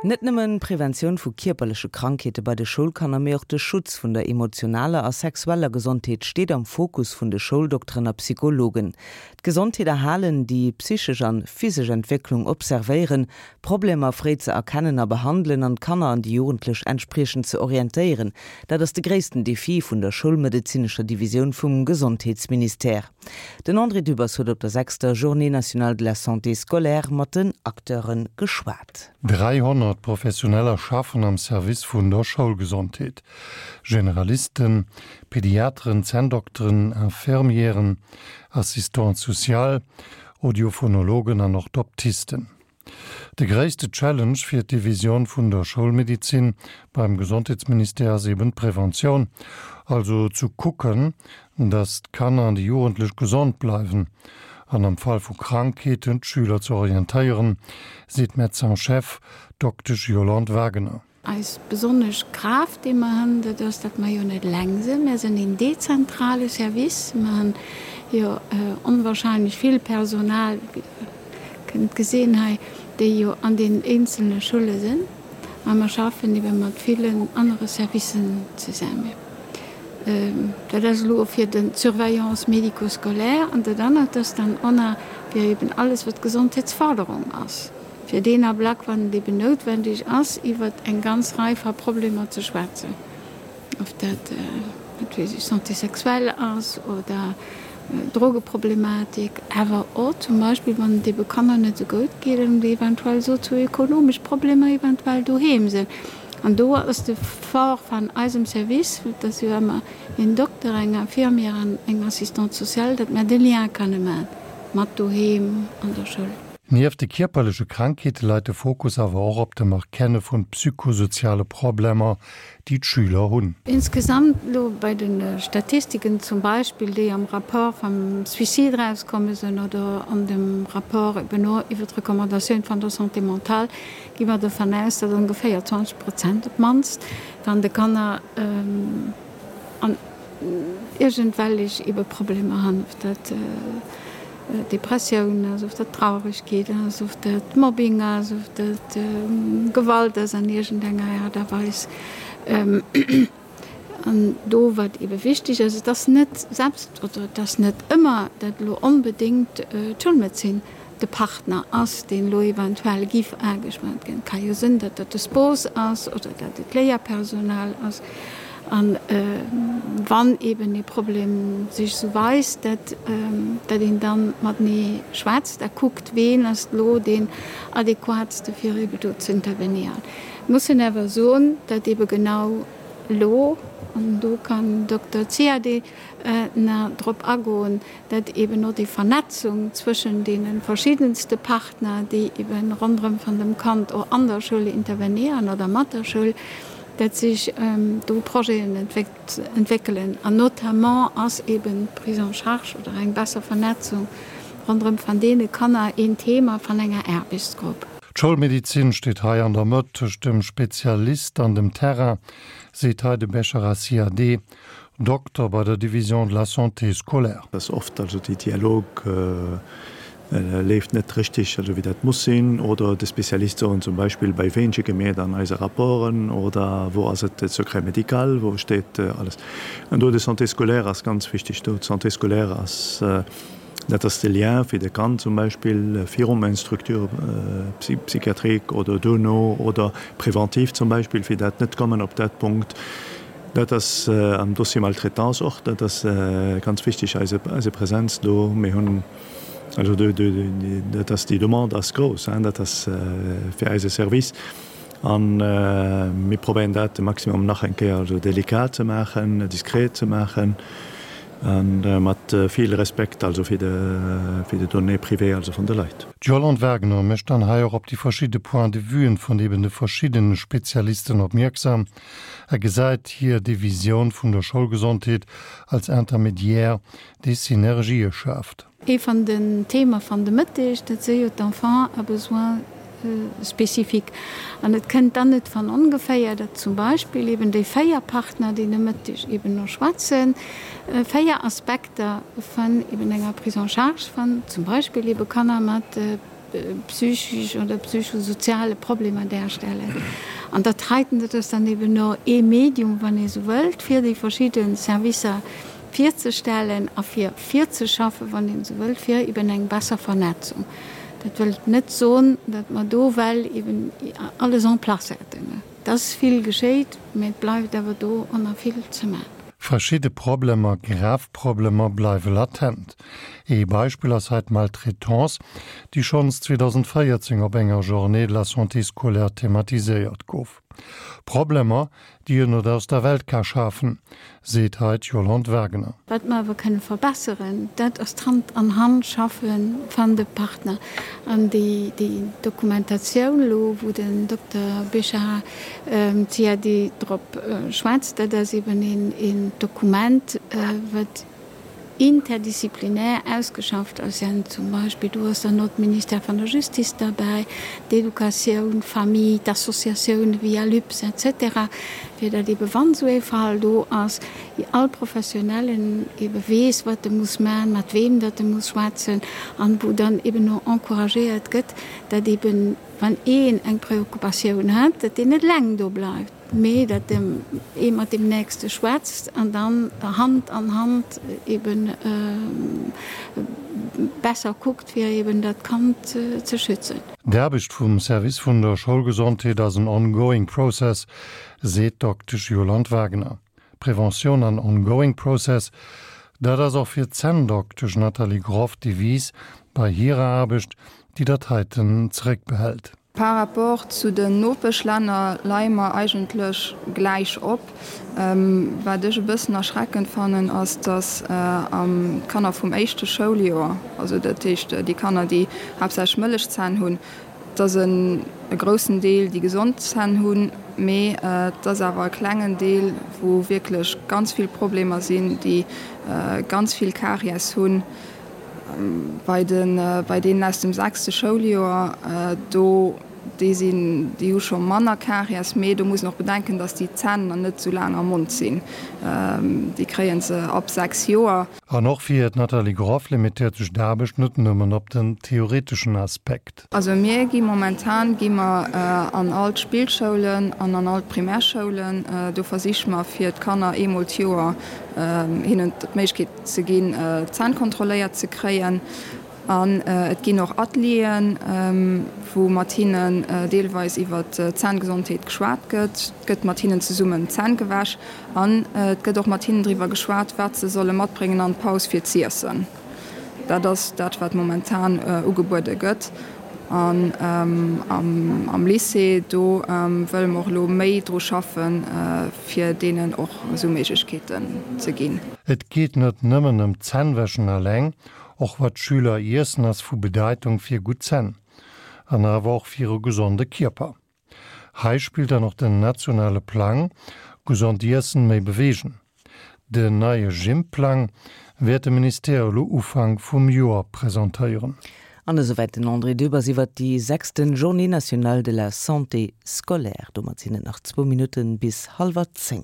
Net nëmmen d'Preventioun vu kierperleche Krankheete bei de Schoulkanner, mee och de Schutz vun der emotionaler a sexueller Gesondheet steet am Fokus vun de Schouldokteren a Psychologen. D'Gesondheet erhalen, déi psychesch an physesch Entwécklung observéieren, Problemer fréi ze erkennen a behandelen an d'Kanner an déi Jugendlech entspriechend ze orientéieren, dat ass de gréissten Defi vun der schoulmedezinescher Divisioun vum Gesondheetsministère. Den André Dübbers huet op der sechster Journée nationale de la santé scolaire mat den Acteure geschwat. 300 Professioneller schaffen am Service vun der Schoulgesondheet, Generalisten, Pediateren, Zänndokteren, Infirmieren, Assistantes sociales, Audiophonologen an Orthoptisten. De gréisste Challenge fir d'Divisioun vun der Schoulmedizin beim Gesondheetsministère ass eben d'Preventioun, also zu kucken, datt d'Kanner an déi Jugendlech gesond bleiwen an am Fall vu Krankheeten d'Schüler ze orientéieren, seet d'Médecin-chef Doktesch Yolande Wagener. Eis besonnesch Kraaft, déi mer hunn, dat ass, datt mer jo net eleng sinn. Mär sinn een dezentrale Service. Mer hunn jo onwahrscheinlech vill Personal, wéi Der kënnt gesinn hei, déi jo an deenen eenzelne Schulle sinn. A mer schaffen ebe mat villen anere Servicen zesammen. Dat ass elo fir de d'Surveillance médico-scolaire. An dat anert ass dann och nach fir eben alles, wat Gesondheetsförderung ass. Fir deen Ablack, wann et eben noutwendeg ass, iwwer eng ganz Rei va Problemer ze schwätzen, ob dat, wat weess ech, Santé sexuelle ass oder Drogeproblematik, awer och zum Beispill, wann et ebe Kanner net esou goud geet an déi eventuell sozioekonomesch Problemer eventuell doheem sinn. An do ass de Fort van eisem Service, dat ass jo ëmmer een Dokter, eng Infirmière an eng Assistante sociale, datt mär de Lien kanne man mat doheem an der Schoul. Nieft de kierperleche Krankheete leit de Fokus awer och op dem Erkenne vun psychosoziale Problemer, déi d'Schüler hunn. Insgesamt elo bei de Statistiken zum Beispill, déi am Rapport vam Suicide erauskomme sinn oder an dem Rapport eben och iwwer d'Recommandatioun van der Santé mentale, gi mer dovun aus, datt ongeféier 20 Prozent op d'mannst van de Kanner an iergendwellech ebe Problemer hunn, ob dat Depressioun ass, of dat Trauregkeet ass, of dat Mobbing ass, of dat Gewalt ass an iergendenger Aart a Weis. An do, wat ebe wichteg ass, et ass net selbst oder et ass net ëmmer, dat elo onbedéngt d'Schoulmedezin de Partner ass, deen elo eventuell giff ageschwat ginn. Et ka jo sinn, datt dat de Spos ass oder datt et d'Léierpersonal ass. An wann eben ee Problem sech esou weist, datt datt een dann matenee schwätzt a kuckt, ween ass elo deen adequatste fir ebe do ze intervenéieren. Mussen awer soen, datt ebe genau elo, an do kann Dokter Ziadé nach drop agoen, dat eben och déi Vernetzung zwëschen deene verschiddenste Partner, déi eben ronderëm van dem Kand och an der Schoul intervenéieren oder mat der Schoul, dat sech do Projeten entwéckelen. An notamment ass eben d'Prise en charge oder eng besser Vernetzung ronderëm van deene Kanner een Thema van enger Aarbechtsgrupp. D'Schoulmedizin steet hei an der Mëtt tëscht dem Spezialist an dem Terrain, seet hei de Bechara Ziadé, Dokter bei der Division de la santé scolaire. Dass oft also déi Dialog leeft net richtig, also wéi dat muss sinn, oder de Spezialist soen zum Beispill, bei ween schicke mir dann eise Rapporten oder wou ass et de Secret médical, wou steet alles. An do de Santé scolaire ass ganz wichtig do. D'Santé scolaire ass, dat ass de Lien fir de Kand zum Beispill virum eng Structure psychiatrique oder duerno oder preventiv zum Beispill, fir dat net kommen op dat Punkt, Dat ass am Dossier Maltraitance och, dat ass ganz wichteg, eise Präsenz do. Mir hunn also do, dat ass, déi Demande ass grouss, dat ass fir eise Service. A mir probéieren dat de Maximum nach eng Kéier also delikat ze maachen, diskret ze maachen a mat vill Respekt also fir de Données privées also vun de Leit. D'Yolande Wagner mécht dann hei och op déi verschidde Points de vuen vun eben de verschiddene Spezialisten opmierksam. A gesäit hir Divisioun vun der Schoulgesondheet als Intermédiaire, dee Synergië schaaft. Ee van den Thema van de Mëtteg, dat si jo d'Enfants à besoins spécifiques. An et kënnt dann net van ongeféier, datt zum Beispill eben déi 4 Partner, déi de Mëtteg eben no schwätzen, 4 Aspekter van eben enger Prise en charge van zum Beispill eben Kanner mat. psychisch oder psychosoziale Problemer darstellen. An dat heiten, dat ass dann eben no ee Medium, wann ee sou wëllt, fir déi verschidde Servicer virzestellen a fir virzeschaffen, wann een esou wëllt, fir eben eng besser Vernetzung. Dat wëllt net soen, datt mer do well eben alles en place hätten. Et ass vill geschéit, mä et bleift awer do och nach vill ze maachen. Verschidde Problemer, grav Problemer, bleiwe latent. Ee Beispill ass hei d'Maltraitance, déi schonns 2014 op enger Journée de la santé scolaire thematiséiert gouf. Problemer, déi een net aus der Welt ka schafen, seet hei d'Yolande Wagener. Wat mer awer kënne verbesseren, dat ass d'Hand an Hand schaffe van de Partner. An déi Dokumentatioun elo, wou den Dokter Béchara Ziadi drop schwätzt, dat ass eben een Dokument, wat interdisziplinär ausgeschafft ass, ja zum Beispill do ass dann och d'Ministère van der Justice derbäi, d'Educatioun, d'Famille, d'Associatioune wéi ALUPS et cetera, fir datt ebe wann esou ee Fall do ass, all Professionellen ebe weess, wat e muss man, mat weem datt e muss schwätzen an wou dann eben och encouragéiert gëtt, datt eben wann een eng Preoccupatioun hat, datt deen net eleng do bleift. Mee datt ee mat deem Nächste schwätzt an dann Hand an Hand eben besser kuckt, fir eben dat Kand ze schützen. D'Aarbecht vum Service vun der Schoulgesondheet ass en ongoing process, seet d'Doktesch Yolande Wagner. Prévention an ongoing process, dat ass och fir d'Zänndoktesch Nathalie Groff d'Devise bei hirer Aarbecht, déi dat heiten zeréckbehält. Par rapport zu den Nopeschlänner leie mer eigentlech gläich op. Wat ech e bëssen erschreckend fannen, ass, datt d'Kanner vum éischte Schouljoer, also dat heescht déi Kanner, déi haaptsächlech Mëllechzänn hunn, et ass e groussen Deel, déi gesond Zänn hunn, mee et ass awer e klengen Deel, wou wierklech ganz vill Problemer sinn, déi ganz vill Karies hunn. Bei den, bei deenen aus dem sechste Schouljoer, do, déi sinn, déi hu scho manner Karies, mee do muss een och bedenken, datt déi Zänn nach net esou laang am Mond sinn. Déi kréie se ab 6 Joer. An och fir d'Nathalie Groff limitéiert sech d'Aarbecht net nëmmen op den theoreteschen Aspekt. Also mir gi momentan gi mer an all d'Spillschoulen an an all d'Primärschoulen. Do versiche mer fir d'Kanner eemol d'Joer hinnen d'Méiglechkeet ze ginn, d'Zänn kontrolléiert ze kréien. An et ginn och Atelieren, wou mat hinnen deelweis iwwer d'Zänngesondheet geschwat gëtt. Et gëtt mat hinnen zesummen d'Zänn gewäsch an et gëtt och mat hinnen driwwer geschwat, wat se solle matbréngen an d'Paus fir z'iessen. Dat ass dat, wat momentan ugebuede gëtt. An am Lycée, do wëlle mer och elo méi dru schaffen, fir deenen och esou Méiglechkeeten ze ginn. Et geet net nëmmen ëm d'Zännwäschen alleng, och wat d'Schüler iessen ass vu Bedeitung fir gutt Zänn an awer och fir e gesonde Kierper. Hei spillt dann och den nationale Plang Gesond iessen, méi beweegen. Den neie Gym-Plang wäert de Ministère elo Ufank vum Joer presentéieren. An esouwäit den André Dübbers iwwert déi sechsten Journée nationale de la santé scolaire. Domat sinn et nach zwou Minutten bis hallwer 10.